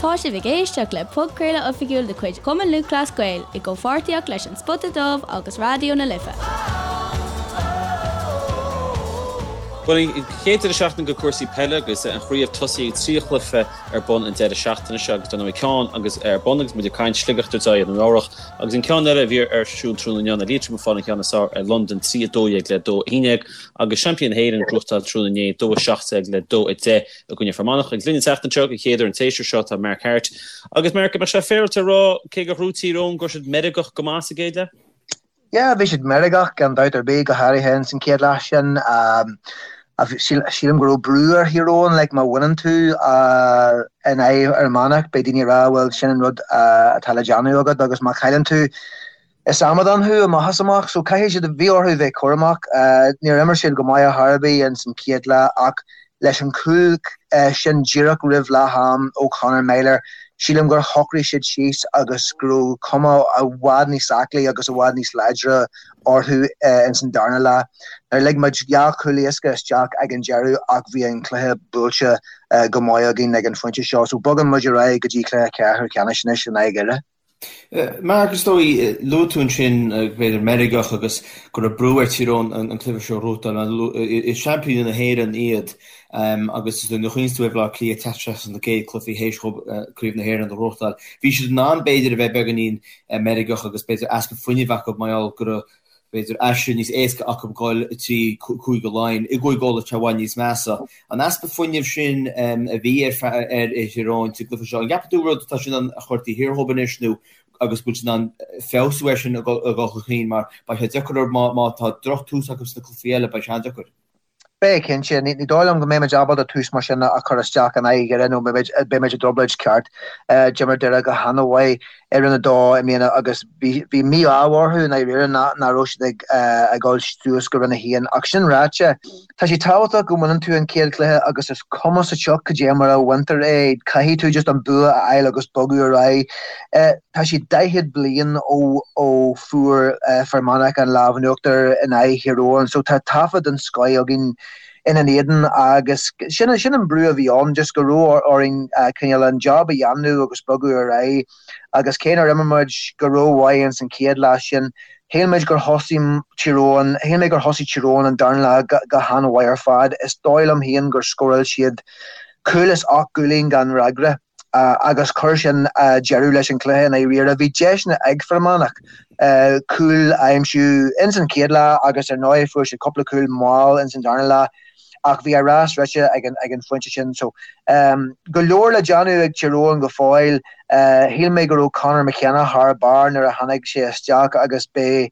Tá sibh ag éisteacht le podchraoladh oifigiúil de chuid Chumann Lúthchleas Gael i gcomhpháirtíocht leis An Spota Dubh agus Raidió na Life. Bhuel, an chéad deireadh seachtaine go cúrsaí peile agus an chraobh tosaithe ag 3 chluiche ar bun an deireadh seachtaine seo agus dar ndóigh ceann agus ar bun agus muid ag caint Sligeach ag tabhairt aghaidh ar an Nua-Eabhrac agus an ceann eile a bhí ar siúl tráthnóna inniu ná Liatroim ag fáil an cheann is fearr ar Londain 3 12 le 2 11 agus seaimpíní na hÉireann ag gnóthachtáil tráthnóna inné 2 17 le 2 10 i gcoinne Fear Manach. Agus linn an tseachtain seo, den chéad uair an tséasúr seo, tá Mark Harte. Agus Mark, an mbeadh sé féaráilte a rá, cé gur ghnóthaigh Tír Eoghain, go raibh siad meirgeach go maith sa gcéad leath? Yeah, bhí siad meirgeach gan dabht ar bith, go háirithe ins an chéad leath sin. Sílim go raibh brú ar Thír Eoghain, like má bhaineann tú in aghaidh Fhear Manach, beidh daoine ag rá, bhuel, sin an rud atá le déanamh agat agus má chailleann tú, Is amadán thú amach is amach, so caithfidh siad, bhí orthu bheith cúramach. Níor imir siad go maith ar chor ar bith ins an chéad leath ach leis an chúl sin díreach roimh leath am ó Conor Meyler, sílim gur shocraigh siad síos agus go raibh cuma i bhfad níos aclaí agus i bhfad níos láidre orthu ins an darna leath. Níor lig muid dhá chúl éasca isteach ag an deireadh ach bhí an cluiche buailte go maith againn ag an phointe seo, so bogann muid ar aghaidh go dtí cluiche ceathrú ceannais anois in aghaidh Dhoire. Mark, is dóigh, luaigh tú ansin b'fhéidir meirgeach agus go raibh brú ar Thír Eoghain an cluiche seo a ghnóthachtáil. Is seaimpíní na hÉireann iad agus is dóigh nuair a chuimhníonn tú ar Bhaile Átha Cliath ag teacht isteach sna céad cluichí théis dhóibh Craobh na hÉireann a ghnóthachtáil, bhí siad in ann b'fhéidir a bheith beagáinín meirgeach agus b'fhéidir easpa fuinnimh acu mar gheall go raibh b'fhéidir aistear níos éasca acu dhul trí Chúige Laighean. I gCúige Uladh tá i bhfad níos measa. An easpa fuinnimh sin a bhí ar Thír Eoghain sa gcluiche seo, an gceapann tú rud atá siad in ann a chur taobh thiar dhóibh anois nó agus go bhfuil siad in ann feabhsú air sin ag dul chun cinn mar beidh sé deacair orthu má tá drochtús acu sna cluichí eile, beidh sé an-deacair. Beidh, cinnte. Ní dóigh liom go mbeimid ábalta tús mar sin a chur isteach in aghaidh Dhoire nó beimid i dtrioblóid ceart. D'imir Doire go han-mhaith i Roinn 2 i mbliana agus bhí mí-ádh orthu i ndáiríre nach raibh siad ag dul suas go Roinn 1. Ach sin ráite, tá sé tábhachtach go mbaineann tú an chéad chluiche agus is cuma sa tsioc cad é mar a bhaintear é, caithfidh tú just an bua a fháil agus bogadh ar aghaidh. Tá sé 40 bliain ó fuair Fear Manach an lámh in uachtar in aghaidh Thír Eoghain so tá taifead den scoith againn ina n-éadan agus sin an brú a bhí ann, just go raibh orainn cineál an job a dhéanamh agus bogadh ar aghaidh agus cé nár imir muid go rómhaith ins an chéad leath sin, shíl muid gur thosaigh Tír Eoghain, shíl mé gur thosaigh Tír Eoghain an darna leath go han-mhaith ar fad. Is dóigh liom féin gur scóráil siad cúl is 8 gcúilín gan fhreagra. agus chuir sin deireadh leis an chluiche i ndáiríre. Bhí deiseanna ag Fear Manach cúil a aimsiú ins an chéad leath agus ar ndóigh fuair siad cúpla cúl mall ins an darna leath ach bhí a rás rite ag an phointe sin. So go leor le déanamh ag Tír Eoghain go fóill. Shíl mé go raibh Conor McKenna thar barr nuair a tháinig sé isteach agus beidh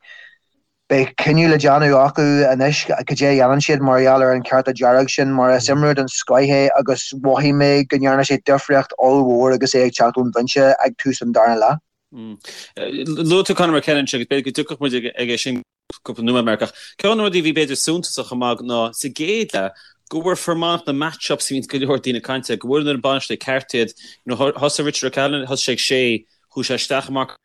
Beidh cinneadh le déanamh acu anois cad é a dhéanann siad mar gheall ar an cárta dearg sin mar is imreoir den scoith é agus mhothaigh mé go ndearna sé difríocht ollmhór agus é ag teacht ón bhinse ag tús an dara leath. Luaigh tú Conor McKenna ansin agus b'fhéidir go dtiocfadh muid aige sin cúpla nóiméad Mark ach ceann de na rudaí a bhí b'fhéidir suntasach chomh maith ná sa gcéad leath go bhfuair Fear Manach na match-ups a bhíonn go leor daoine ag caint air, go bhfuair an bainisteoir ceart iad. Thosaigh Richard O'Callaghan, thosaigh sé ag sé, chuaigh sé isteach i Mark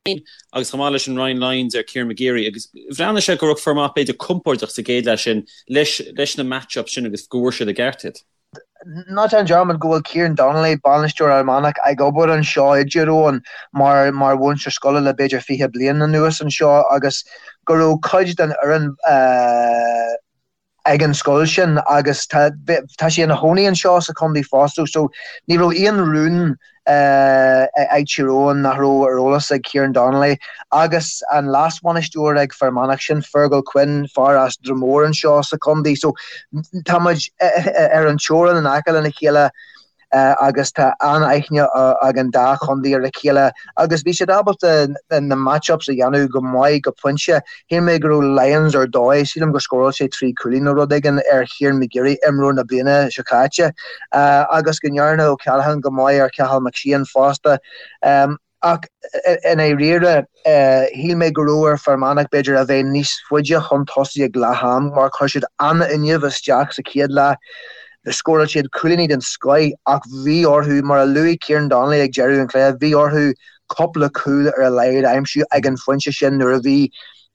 agus chomh maith leis sin Ryan Lyons ar Kieran McGeary agus bhreathnaigh sé go raibh Fear Manach b'fhéidir compordach sa gcéad leath sin leis leis na match-ups sin agus go bhfuair siad i gceart iad. Ná déan dearmad go bhfuil Kieran Donnelly, bainisteoir Fhear Manach, ag obair anseo i dTír Eoghain mar mar mhúinteoir scoile le b'fhéidir 20 bliain anuas anseo agus go raibh cuid den fhoireann ag an scoil sin agus tá tá sé ina chónaí anseo sa chontae fosta so ní raibh aon rún ag Tír Eoghain nach raibh ar eolas ag Kieran Donnelly agus an leas-bhainisteoir ag Fear Manach sin Fergal Quinn, fear as Dromore anseo sa chontae so tá muid ar an teorainn in aice lena chéile. agus tá an-aithne ag an dá chontae ar a chéile agus bhí siad ábalta na match-ups a dhéanamh go maith go pointe. Shíl mé go raibh Lyons ar dóigh, sílim gur scóráil sé 3 chúilín nó rud éigin ar Kieran McGeary, imreoir na bliana seo caite, agus go ndearna O'Callaghan go maith ar Cathal McShane fosta. Ach i ndáiríre, shíl mé go raibh ar Fear Manach b'fhéidir a bheith níos faide chun tosaigh ag leath am mar chuir siad an-fhuinneamh isteach sa chéad leath. Scóráil siad cúilíní den scoith ach bhí orthu, mar a luaigh Kieran Donnelly ag deireadh an chluiche, bhí orthu cúpla cúl ar a laghad a aimsiú ag an phointe sin nuair a bhí.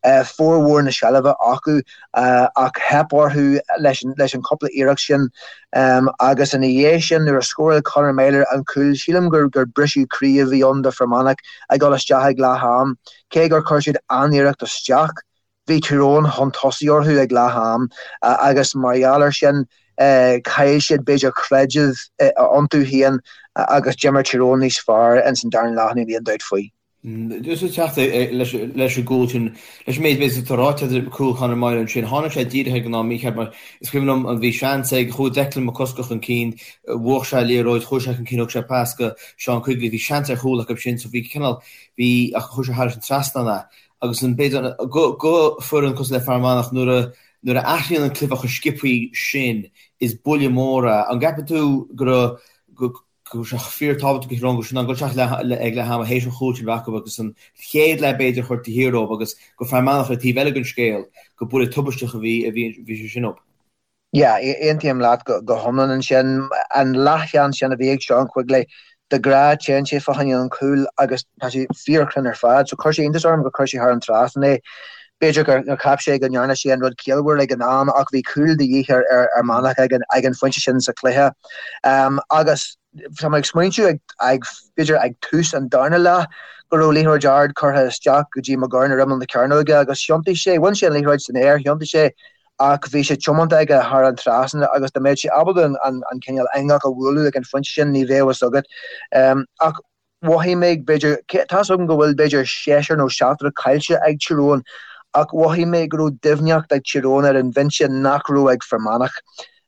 Formhór na seilbhe acu ach theip orthu leis an chúpla iarracht sin agus ina dhiaidh sin nuair a scóráil Conor Meyler an cúl sílim gur briseadh croí a bhí ann do Fhear Manach ag dul isteach ag leath am. Cé gur chuir siad an-iarracht isteach bhí Tír Eoghain chun tosaigh orthu ag leath am agus mar gheall air sin chaill siad b'fhéidir creideamh iontu féin agus d'imir Tír Eoghain níos fearr ins an darna leath níl aon dabht faoi. Just ag teacht leis an gcúl sin, leis an méid b'fhéidir atá ráite agat cúl Conor Meyler ansin, tháinig sé díreach ag an am mícheart mar is cuimhin liom an bhí seans ag, chuaigh Declan McCusker chun cinn, bhuaigh sé an liathróid, chuaigh sé chun cinn, thug sé pas go Seán Quigley, bhí seans ar chúl acu sin so bhí cineál, bhí, ach chuaigh sé thairis an trasnán é. Agus an b'fhéidir go, go foireann cosúil le Fear Manach nuair a, nuair a athraíonn an cluiche chomh sciobthaí sin is buille mór é. An gceapann tú go raibh, go, go raibh sé fíor-tábhachtach do Thír Eoghain go raibh siad in ann dul isteach ag leath ama théis an chúil sin a bheith acu agus an chéad leath b'fhéidir a chur taobh thiar dóibh agus go Fear Manach ar an taobh eile den scéal go buille tubaisteach a bhí a bhí bhí sé sin dóibh. Yeah, aontaím leat go hiomlán ansin. An leathsheans sin a bhí ag Seán Quigley, de ghnáth téann sé fá choinne an chúil agus tá sé fíorchruinn ar fad so chuir sé iontas orm gur chuir sé thar an trasnán é. B'fhéidir gur cheap sé go ndearna sé an rud ciallmhar ag an am ach bhí cúl de dhíth ar Fhear Manach ag an phointe sin sa chluiche. Agus tá mé ag smaointiú ag, b'fhéidir ag tús an darna leath go raibh liathróid ard curtha isteach go dtí McGurn ar imeall na cearnóige agus thiontaigh sé, bhain sé an liathróid san aer, thiontaigh sé ach bhí sé tiomanta aige thar an trasnán agus dá mbeadh sé ábalta an cineál eangach a bhualadh ag an phointe sin ní bheadh fhios agat. Ach mhothaigh mé, b'fhéidir, tá's agam go bhfuil b'fhéidir seisear nó seachtar caillte ag Tír Eoghain, ach mhothaigh mé go raibh doimhneacht ag Tír Eoghain ar an bhinse nach raibh ag Fear Manach.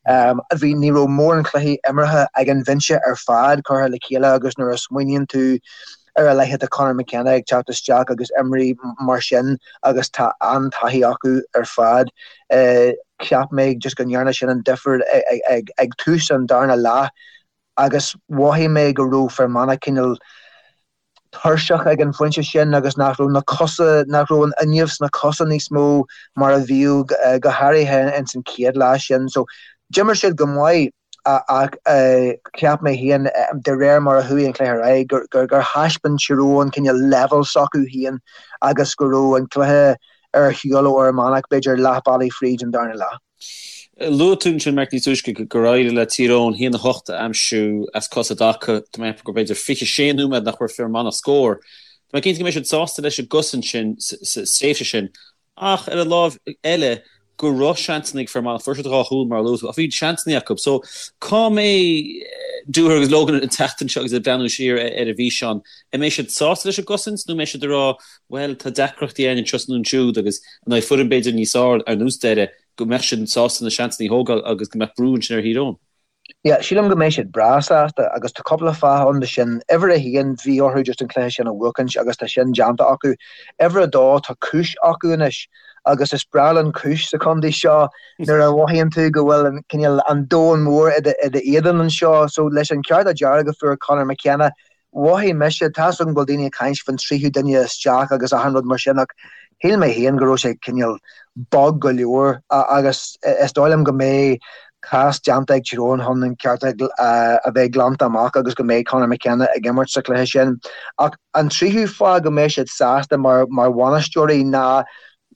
Bhí, ní raibh mórán cluichí imeartha ag an bhinse ar fad curtha le chéile agus nuair a smaoiníonn tú ar a leithéid de Conor McKenna ag teacht isteach agus imrí mar sin agus tá an-taithí acu ar fad, cheap mé just go ndearna sin an difear ag tús an darna leath. agus mhothaigh mé go raibh Fear Manach cineál tuirseach ag an phointe sin agus nach raibh na cosa, nach raibh an fhuinneamh sna cosa níos mó mar a bhíodh go háirithe ins an chéad leath sin. So d'imir siad go maith ach cheap mé féin de réir mar a chuaigh an cluiche ar aghaidh gur gur thaispeáin Tír Eoghain cineál leibhéal s'acu féin agus go raibh an cluiche ar shiúl ó Fhear Manach b'fhéidir leath bealaigh fríd an darna leath. Luaigh tú ansin, Marc, níos túisce gur éirigh le Tír Eoghain 1-8 a aimsiú as cos i dtaca. Tá mé ag ceapadh gur b'fhéidir 26 nóiméad nach bhfuair Fear Manach scór. Tá mé cinnte go mbeidh siad sásta leis an gcosaint sin sa tréimhse sin ach ar an láimh eile go raibh seansanna ag Fear Manach. Fuair siad dhá chúl mar a luaigh tú ach bhí seansanna acu. So cá mbeidh Dooher agus Logan an tseachtain seo agus ag breathnú siar ar an bhfíseán? An mbeidh siad sásta leis an gcosaint nó an mbeidh siad ag rá bhuel, tá deacrachtaí againn anseo is nó ansiúd agus in aghaidh foireann b'fhéidir níos fearr ar nós Doire, go mbeadh siad sásta na seansanna a thógáil agus go mbeadh brú ansin ar Thír Eoghain. Yeah, sílim go mbeidh siad breá sásta agus tá cúpla fáth ann do sin. Uimhir a haon, bhí orthu just an cluiche sin a bhuachaint agus tá sin déanta acu. Uimhir a dó, tá cúis acu anois agus is breá linn cúis sa chontae seo nuair a mhothaíonn tú go bhfuil an cineál an domhan mór i d'éadan anseo. So leis an cárta dearg a fuair Conor McKenna, Mhothaigh mise, tá's agam go bhfuil daoine ag caint faoin tríú duine isteach agus achan rud mar sin ach shíl mé féin go raibh sé cineál bog go leor agus is dóigh liom go mbeidh cás déanta ag Tír Eoghain chun an cárta a bheith glanta amach agus go mbeidh Conor McKenna ag imirt sa chluiche sin. Ach an tríú fáth go mbeidh siad sásta mar bhainisteoirí ná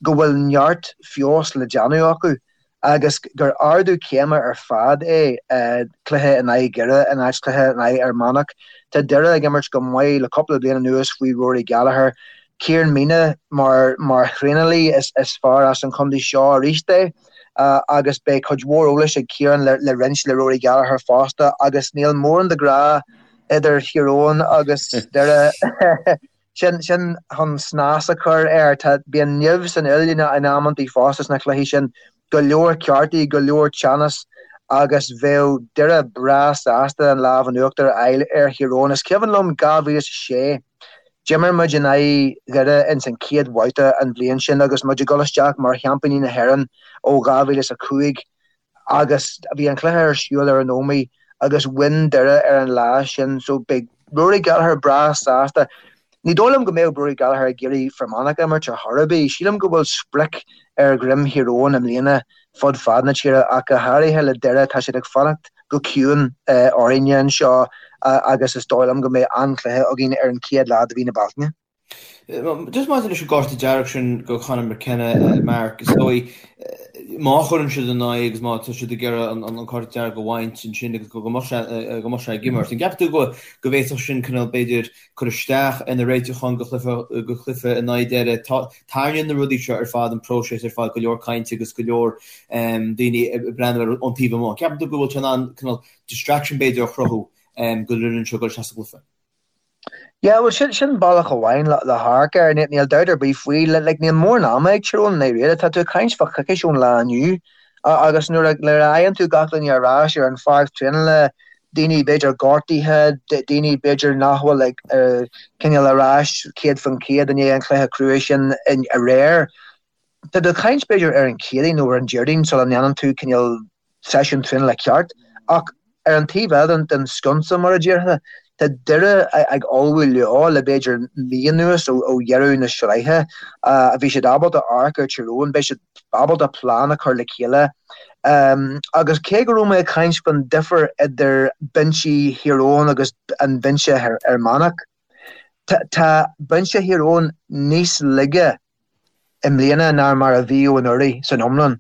go bhfuil neart feabhas le déanamh acu. agus gur ardú céime ar fad é cluiche in aghaidh Dhoire in áit cluiche in aghaidh Fhear Manach. Tá Doire ag imirt go maith le cúpla bliain anuas faoi Rory Gallagher. Ciarán Meenagh mar mar thraenálaí is is fear as an chontae seo arís é agus beidh cuid mhór eolais ag Ciarán le le roinnt le Rory Gallagher fosta agus níl mórán de ghrá idir Thír Eoghain agus Doire. Sin, sin chun snas a chur air. Tá, bíonn nimh san fhuil in amantaí fosta sna cluichí sin. Go leor cártaí, go leor teannas agus bheadh Doire breá sásta an lámh in uachtar a fháil ar Thír Eoghain. Is cuimhin liom 2006, d'imir muid in aghaidh Dhoire ins an chéad bhabhta an bhliain sin agus muid ag dul isteach mar sheaimpíní na hÉireann ó 2005. agus bhí an cluiche ar siúl ar an Ómaigh agus bhain Doire ar an lá sin so beidh Rory Gallagher breá sásta. Ní dóigh liom go mbeadh Rory Gallagher ag iarraidh Fear Manach a imirt ar chor ar bith. Sílim go bhfuil sprioc ar dhroim Thír Eoghain i mbliana fud fad na tíre ach go háirithe le Doire tá siad ag fanacht go ciúin orainne anseo agus is dóigh liom go mbeidh an-chluiche againn ar an chéad lá de mhí na Bealtaine. Just maidir leis an gcárta dearg sin go Conor McKenna, Mark, is dóigh má chuireann siad in aghaidh agus má tá siad ag iarraidh an cárta dearg a bhaint ansin agus go mbeadh sé go mbeadh sé ag imirt. An gceapann tú go go bhféadfadh sin cineál b'fhéidir cur isteach ar na réiteacháin go chluiche go chluiche in aghaidh Doire? Tarraingíonn na rudaí seo ar fad an próiseas ar fad go leor cainte agus go leor daoine ag breathnú air ón taobh amuigh. An gceapann tú go bhfuil sé in ann cineál distraction b'fhéidir a chruthú go bhfuil seo ag dul isteach sa gcluiche? Yeah, bhuel sin, sin bealach amháin le, le hamharc air, níl, níl dabht ar bith faoi, like níl mórán ama ag Tír Eoghain i ndáiríre, tá tú ag caint fá choicís ón lá inniu agus nuair a, nuair a fhaigheann tú gach duine ar ais ar an pháirc traenála, daoine b'fhéidir gortaithe, daoine b'fhéidir nach bhfuil ag, cineál ar ais 100% i ndiaidh an chluiche crua sin aréir. Tá tú ag caint b'fhéidir ar an Chéadaoin nó ar an Déardaoin sula ndéanann tú cineál seisiún traenála ceart ach ar an taobh eile den sconsa, mar a déarfá, tá Doire ag ullmhú leo le b'fhéidir mí anuas ó dheireadh na sraithe. Bhí siad ábalta amharc ar Tír Eoghain, beidh siad ábalta plean a chur le chéile agus cé go raibh mé ag caint faoin difear idir binsí Thír Eoghain agus an binse Fhear Manach, tá binse Thír Eoghain níos laige i mbliana ná mar a bhíodh anuraidh san iomlán.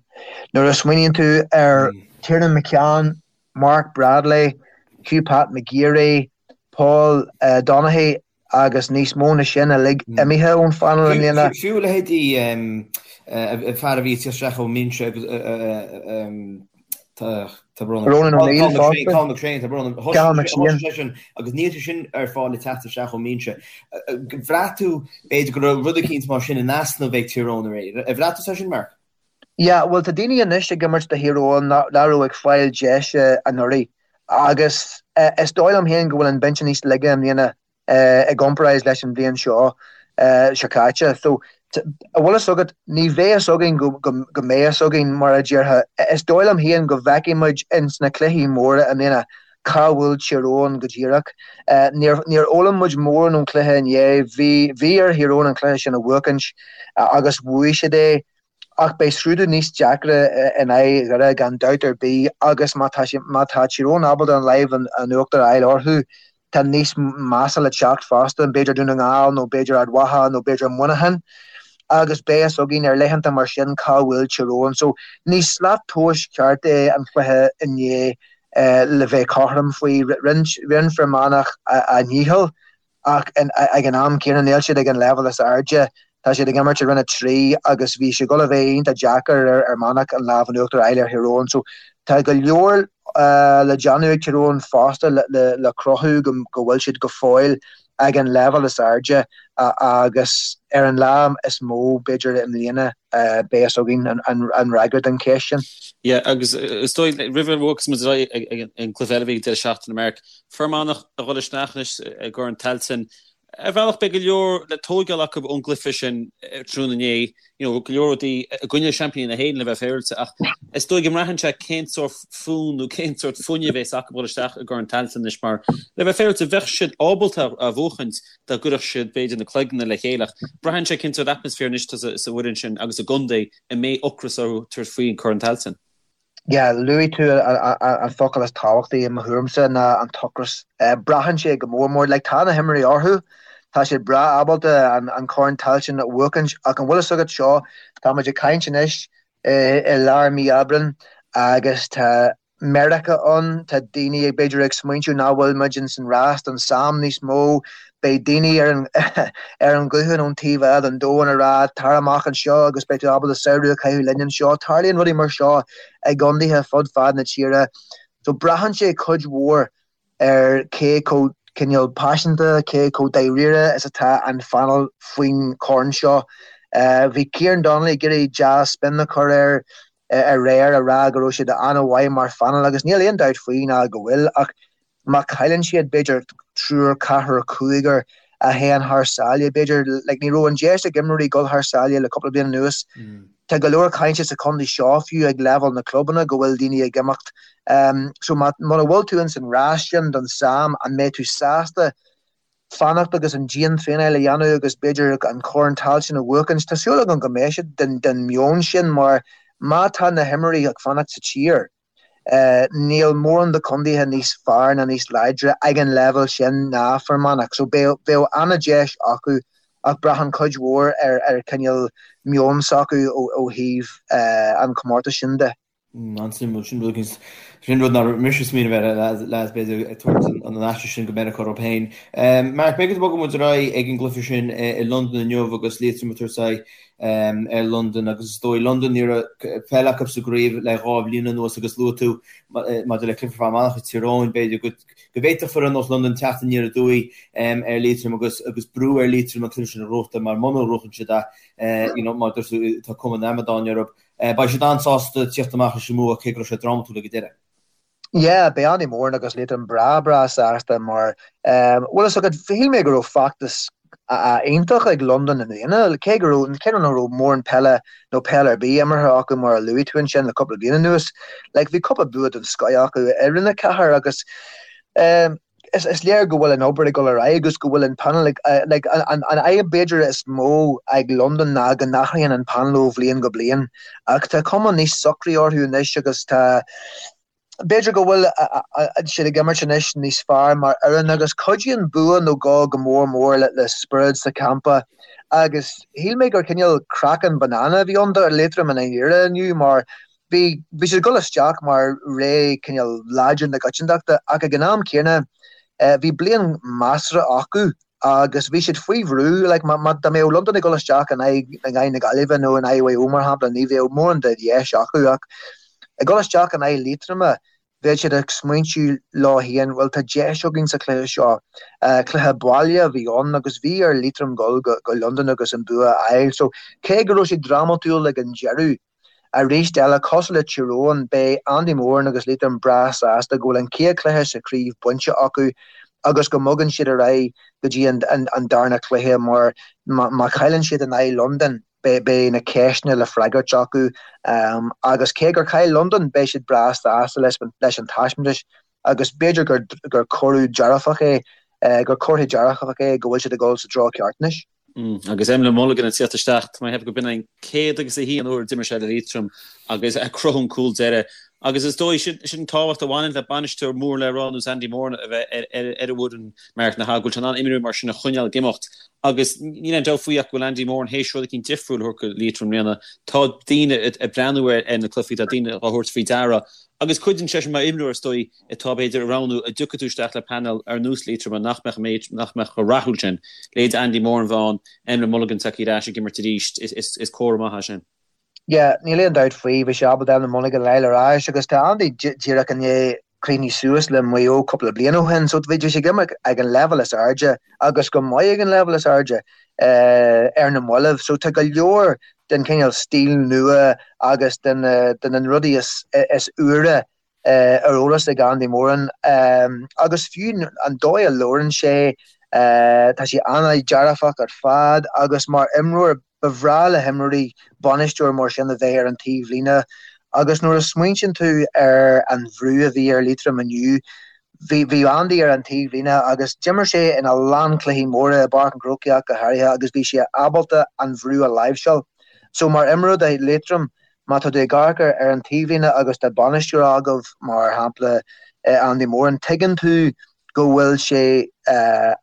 Nuair a smaoiníonn tú ar Tiernan McCann, Mark Bradley, Hugh Pat McGeary, Paul Donaghy agus níos mó na sin uilig imithe ón phainéal i mbliana. Fiú leithéidí fear a bhí ag teacht isteach ón mbinse agus Tá brón orm. Ronan O'Neill fosta. Cathal McShane, tá brón orm. Cathal McShane. Thosaigh seisean agus níl sé sin ar fáil le teacht isteach ón mbinse. Bhraith tú, b'fhéidir, go raibh rud eicínt mar sin in easnamh ag Tír Eoghain aréir. Ar bhraith tú é sin, Mark? Yeah, bhuel tá daoine anois ag imirt do Thír Eoghain nach raibh ag fáil deise anuraidh agus is dóigh liom féin go bhfuil an binse níos laige i mbliana i gcomparáid leis an bhliain seo seo caite. So, an bhfuil fhios agat, ní bheidh fhios againn go go mbeidh fhios againn, mar a déarfá. Is dóigh liom féin go bhfeicfidh muid ins na cluichí móra i mbliana cá bhfuil Tír Eoghain go díreach. Níor níor fhoghlaim muid mórán ón chluiche inné. Bhí bhí ar Thír Eoghain an cluiche sin a bhuachaint agus bhuaigh siad é. Ach beidh scrúdú níos deacra in aghaidh Dhoire gan dabht ar bith agus má tá má tá Tír Eoghain ábalta an lámh in uachtar a fháil orthu, tá níos measa le teacht fosta, b'fhéidir Dún na nGall nó b'fhéidir Ard Mhacha nó b'fhéidir Muineachán agus beidh fhios againn ar laethanta mar sin cá bhfuil Tír Eoghain. So ní slat tomhais ceart é an cluiche inné le bheith cothrom faoi. Rinne Fear Manach a ndícheall ach ag an am céanna níl siad ag an leibhéal is airde. Tá siad ag imirt i Roinn 3 agus bhí sé ag dul a bheith iontach deacair ar Fhear Manach an lámh in uachtar a fháil ar Thír Eoghain. So tá go leor le déanamh ag Tír Eoghain fosta le cruthú go bhfuil siad go fóill ag an leibhéal is airde agus ar an lá is mó b'fhéidir i mbliana beidh fhios againn an fhreagra don cheist sin. Yeah, agus is dóigh roimh a bhogfas muid ar aghaidh ag an gcluiche eile a bhí ag deireadh seachtaine, Mark, Fear Manach a dhul isteach anois i gCorn Tailteann. Ar bhealach beidh go leor le tóigeáil acu ón gcluiche sin tráthnóna inné, you know, go leor rudaí i gcoinne seaimpíní na hÉireann le bheith féaráilte ach is dóigh go mbraitheann sé cén sórt fonn nó cén sórt fuinnimh a bheas acu a dhul isteach i gCorn Tailteann anois mar le bheith féaráilte bheadh siad ábalta a bhuachaint dá gcuirfeadh siad b'fhéidir na cloigne le chéile ach braitheann sé cén sórt atmaisféar anois atá sa bhfoireann sin agus sa gcontae a mbeidh ocras orthu tabhairt faoin Corn Tailteann. Yeah, luaigh tú an focal is tábhachtaí i mo thuairimse ná an t-ocras. Braitheann sé go mór mór, like tá na himreoirí orthu, tá siad breá ábalta an Corn Tailteann a bhuachaint ach an bhfuil fhios agat seo, tá muid ag caint anois i lár mí Aibreán agus tá Meiriceá ann, tá daoine ag b'fhéidir ag smaointiú nach bhfuil muid ins an rás don Sam níos mó, Beidh daoine ar an ar an ghuthán ón taobh eile den domhan ag rá 'tar amach anseo agus beidh tú ábalta samhradh a chaitheamh linn anseo'. Tarlaíonn rudaí mar seo i gcontaetha fud fad na tíre. So braitheann sé cuid mhór ar cé chomh cineál paiseanta, cé chomh dáiríre is atá an phainéal faoin chorn seo. Bhí Kieran Donnelly ag iarraidh dea-spin a chur air aréir a rá go raibh siad an-mhaith mar phainéal agus níl aon dabht faoi ná go bhfuil ach má chailleann siad b'fhéidir triúr, ceathrar, cúigear a théann thar sáile b'fhéidir, like ní raibh an deis ag imreoirí dul thar sáile le cúpla bliain anuas. Tá go leor cainte sa chontae seo fiú ag leibhéal na clubanna go bhfuil daoine ag imeacht. So má muna bhfuil tú ins an rás sin don Sam an mbeidh tú sásta fanacht agus an dian-traenáil a dhéanamh agus b'fhéidir an Corn Tailteann a bhuachaint. Tá súil agam go mbeidh siad den meon sin mar má tá na himreoirí ag fanacht sa tír, níl mórán de chontaetha níos fearr ná níos láidre ag an leibhéal sin ná Fear Manach. So bheadh an-deis acu. Ach braitheann cuid mhór ar ar cineál meon s'acu ó thaobh an chomórtais sin de. An-suimiúil. Sin rud éicint, sin rud nach raibh mise ag smaoineamh air, lads, b'fhéidir ag tabhairt an aiste sin go Meiriceá orthu féin. Mark, b'fhéidir go mbogfaidh muid ar aghaidh ag an gcluiche sin i Londain inniu agus Liatroim ag tabhairt aghaidh ar Londain agus is dóigh Londain ní raibh peil acu sa gcraobh le 2 bhliain anuas agus luaigh tú maidir le cluiche Fear Manach ag Tír Eoghain, b'fhéidir go go bhféadfadh foireann ar nós Londain teacht aniar aduaidh ar Liatroim agus agus brú ar Liatroim an cluiche sin a ghnóthachtáil mar muna ngnóthaíonn siad é, you know, mar dúirt tú, tá cuma an amadáin orthu. Beidh siad an-sásta tíocht amach leis an mbua cé go raibh sé drámatúil ag an deireadh. Yeah, beidh Andy Moran agus Liatroim breá breá sásta mar, bhfuil fhios agat, shíl mé go raibh feachtas iontach ag Londain i mbliana, cé go raibh, cé nach raibh mórán peile nó peil ar bith imeartha acu mar a luaigh tú ansin le cúpla bliain anuas. Like, bhí cúpla bua den scoith acu i Roinn 4 agus, Is léir go bhfuil an obair ag dul ar aghaidh agus go bhfuil an painéal ag, like, an fhadhb b'fhéidir is mó ag Londain ná go n-athraíonn an painéal ó bhliain go bliain. Ach tá cuma níos socraí orthu anois agus tá, b'fhéidir go bhfuil siad ag imirt anois níos fearr mar fhoireann agus cuidíonn bua nó dhó go mór mór le spiorad sa champa. Agus shíl mé gur cineál craiceann banana a bhí ann do Liatroim i ndáiríre inniu mar Bhí, bhí siad ag dul isteach mar ré cineál láidir na coitiantachta ach ag an am céanna bhí bliain measartha acu agus bhí siad faoi bhrú, like má, má, dá mbeadh Londain ag dul isteach in aghaidh, in aghaidh na Gaillimhe nó in aghaidh Mhaigh Eo mar shampla ní bheadh mórán de dheis acu ach ag dul isteach in aghaidh Liatroma bheadh siad ag smaointiú leo féin, bhuel tá deis againn sa chluiche seo. Cluiche baile a bhí ann agus bhí ar Liatroim dul go, go Londain agus an bua a fháil so cé go raibh sé drámatúil ag an deireadh, Arís eile, cosúil le Tír Eoghain, beidh Andy Moran agus Liatroim breá sásta go bhfuil an chéad chluiche sa chraobh bainte acu agus go mbogann siad ar aghaidh go dtí an darna cluiche mar má chailleann siad in aghaidh Londain, beidh na ceisteanna le freagairt acu agus cé gur chaill Londain, beidh siad breá sásta leis an taispeántas agus b'fhéidir gur cuireadh dearfach é, gur comhartha dearfach é go bhfuil siad ag dul sa treo ceart anois. Agus Emlyn Mulligan ag tíocht isteach, tá mé ag ceapadh go b'in an 101 uair a d'imir sé le Liatroim agus ag cruthú an cúl deiridh. Agus is dóigh, sin an tábhacht a bhaineann le bainisteoir mór le rá ar nós Andy Moran a bheith ar an bhfoireann, Mark, nach ea, go bhfuil sé in ann imreoirí mar sin a choinneáil ag imeacht. Agus níl aon dabht faoi ach go bhfuil Andy Moran théis rud eicínt difriúil a thabhairt go Liatroim i mbliana. Tá daoine ag breathnú ar na cluichí, tá daoine á thabhairt faoi deara. Agus cuidíonn sé sin mar imreoir, is dóigh, atá, b'fhéidir, ag roghnú an dtiocfaidh tú isteach le painéal ar nós Liatroma nach mbeadh an méid, nach mbeadh chomh rathúil sin. Leithéid Andy Moran bheith ann, Emlyn Mulligan tagtha ar ais ag imirt arís, is comhartha maith é sin. Yeah, níl aon dabht faoi, bhí sé ábalta Emlyn Mulligan a fháil ar ais agus tá Andy díreach i ndiaidh críochnú suas le Maigh Eo cúpla bliain ó shin so bhí sé ag imirt ag an leibhéal is airde agus go maith ag an leibhéal is airde ar na mallaibh so tá go leor den chineál stíl nua agus de na rudaí is úire ar eolas ag Andy Moran agus fiú an dóigh a labhrann sé, tá sé an-dearfach ar fad agus mar imreoir ba bhreá le himreoirí bainisteoir mar sin a bheith ar an taobhlíne agus nuair a smaointíonn tú ar an bhrú a bhí ar Liatroim inniu, bhí bhí Andy ar an taobhlíne agus d'imir sé ina lán cluichí móra i bPáirc an Chrócaigh ach go háirithe agus bhí sé ábalta an bhrú a láimhseáil. So mar imreoir do Liatroim, Má tá tú ag amharc ar an taobhlíne agus tá bainisteoir agaibh, mar shampla Andy Moran, tuigeann tú go bhfuil sé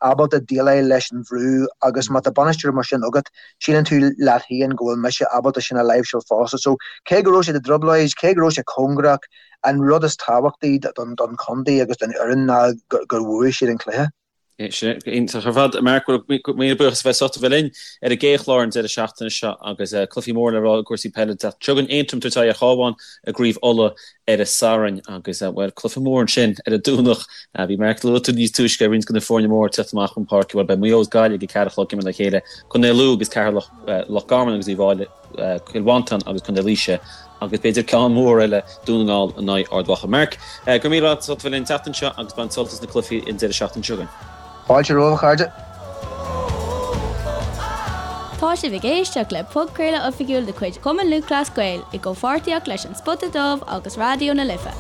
ábalta déileáil leis an bhrú agus má tá bainisteoir mar sin agat, síleann tú leat féin go bhfuil mise ábalta sin a láimhseáil fosta. So, cé go raibh siad i dtrioblóid, cé go raibh sé cóngarach, an rud is tábhachtaí don chontae agus don fhoireann ná gur bhuaigh siad an cluiche. Sin iontach ar fad. Mark, bhuel, míle buíochas a bheith sásta bheith linn ar an gcéad chlár an deireadh seachtaine seo agus cluichí móra le rá i gcúrsaí peile. Seo chugainn Aontroim ag tabhairt aghaidh ar Chabhán i gCraobh Uladh ar an Satharn agus, bhuel, cluiche mór ansin ar an Domhnach. Bhí Mark luaigh tú níos túisce roinnt de na foirne móra ag teacht amach chun páirce. Bhuel, beidh Maigh Eo agus Gaillimh ag a 4 a chlog ag imirt le chéile, Contae Lú agus Ceatharlach, Loch Garman agus Uíbh Fhailí. Cill Mhantáin agus Contae Laoise agus b'fhéidir ceann mór eile, Dún na nGall in aghaidh Ard Mhacha. Mark, go raibh míle maith agat as ucht a bheith linn an tseachtain seo agus bain sult as na cluichí an deireadh seachtaine seo chugainn. Fáilte romhaibh, a chairde. Tá sibh ag éisteacht le podchraoladh oifigiúil de chuid Chumann Lúthchleas Gael i gcomhpháirtíocht leis An Spota Dubh agus Raidió na Life.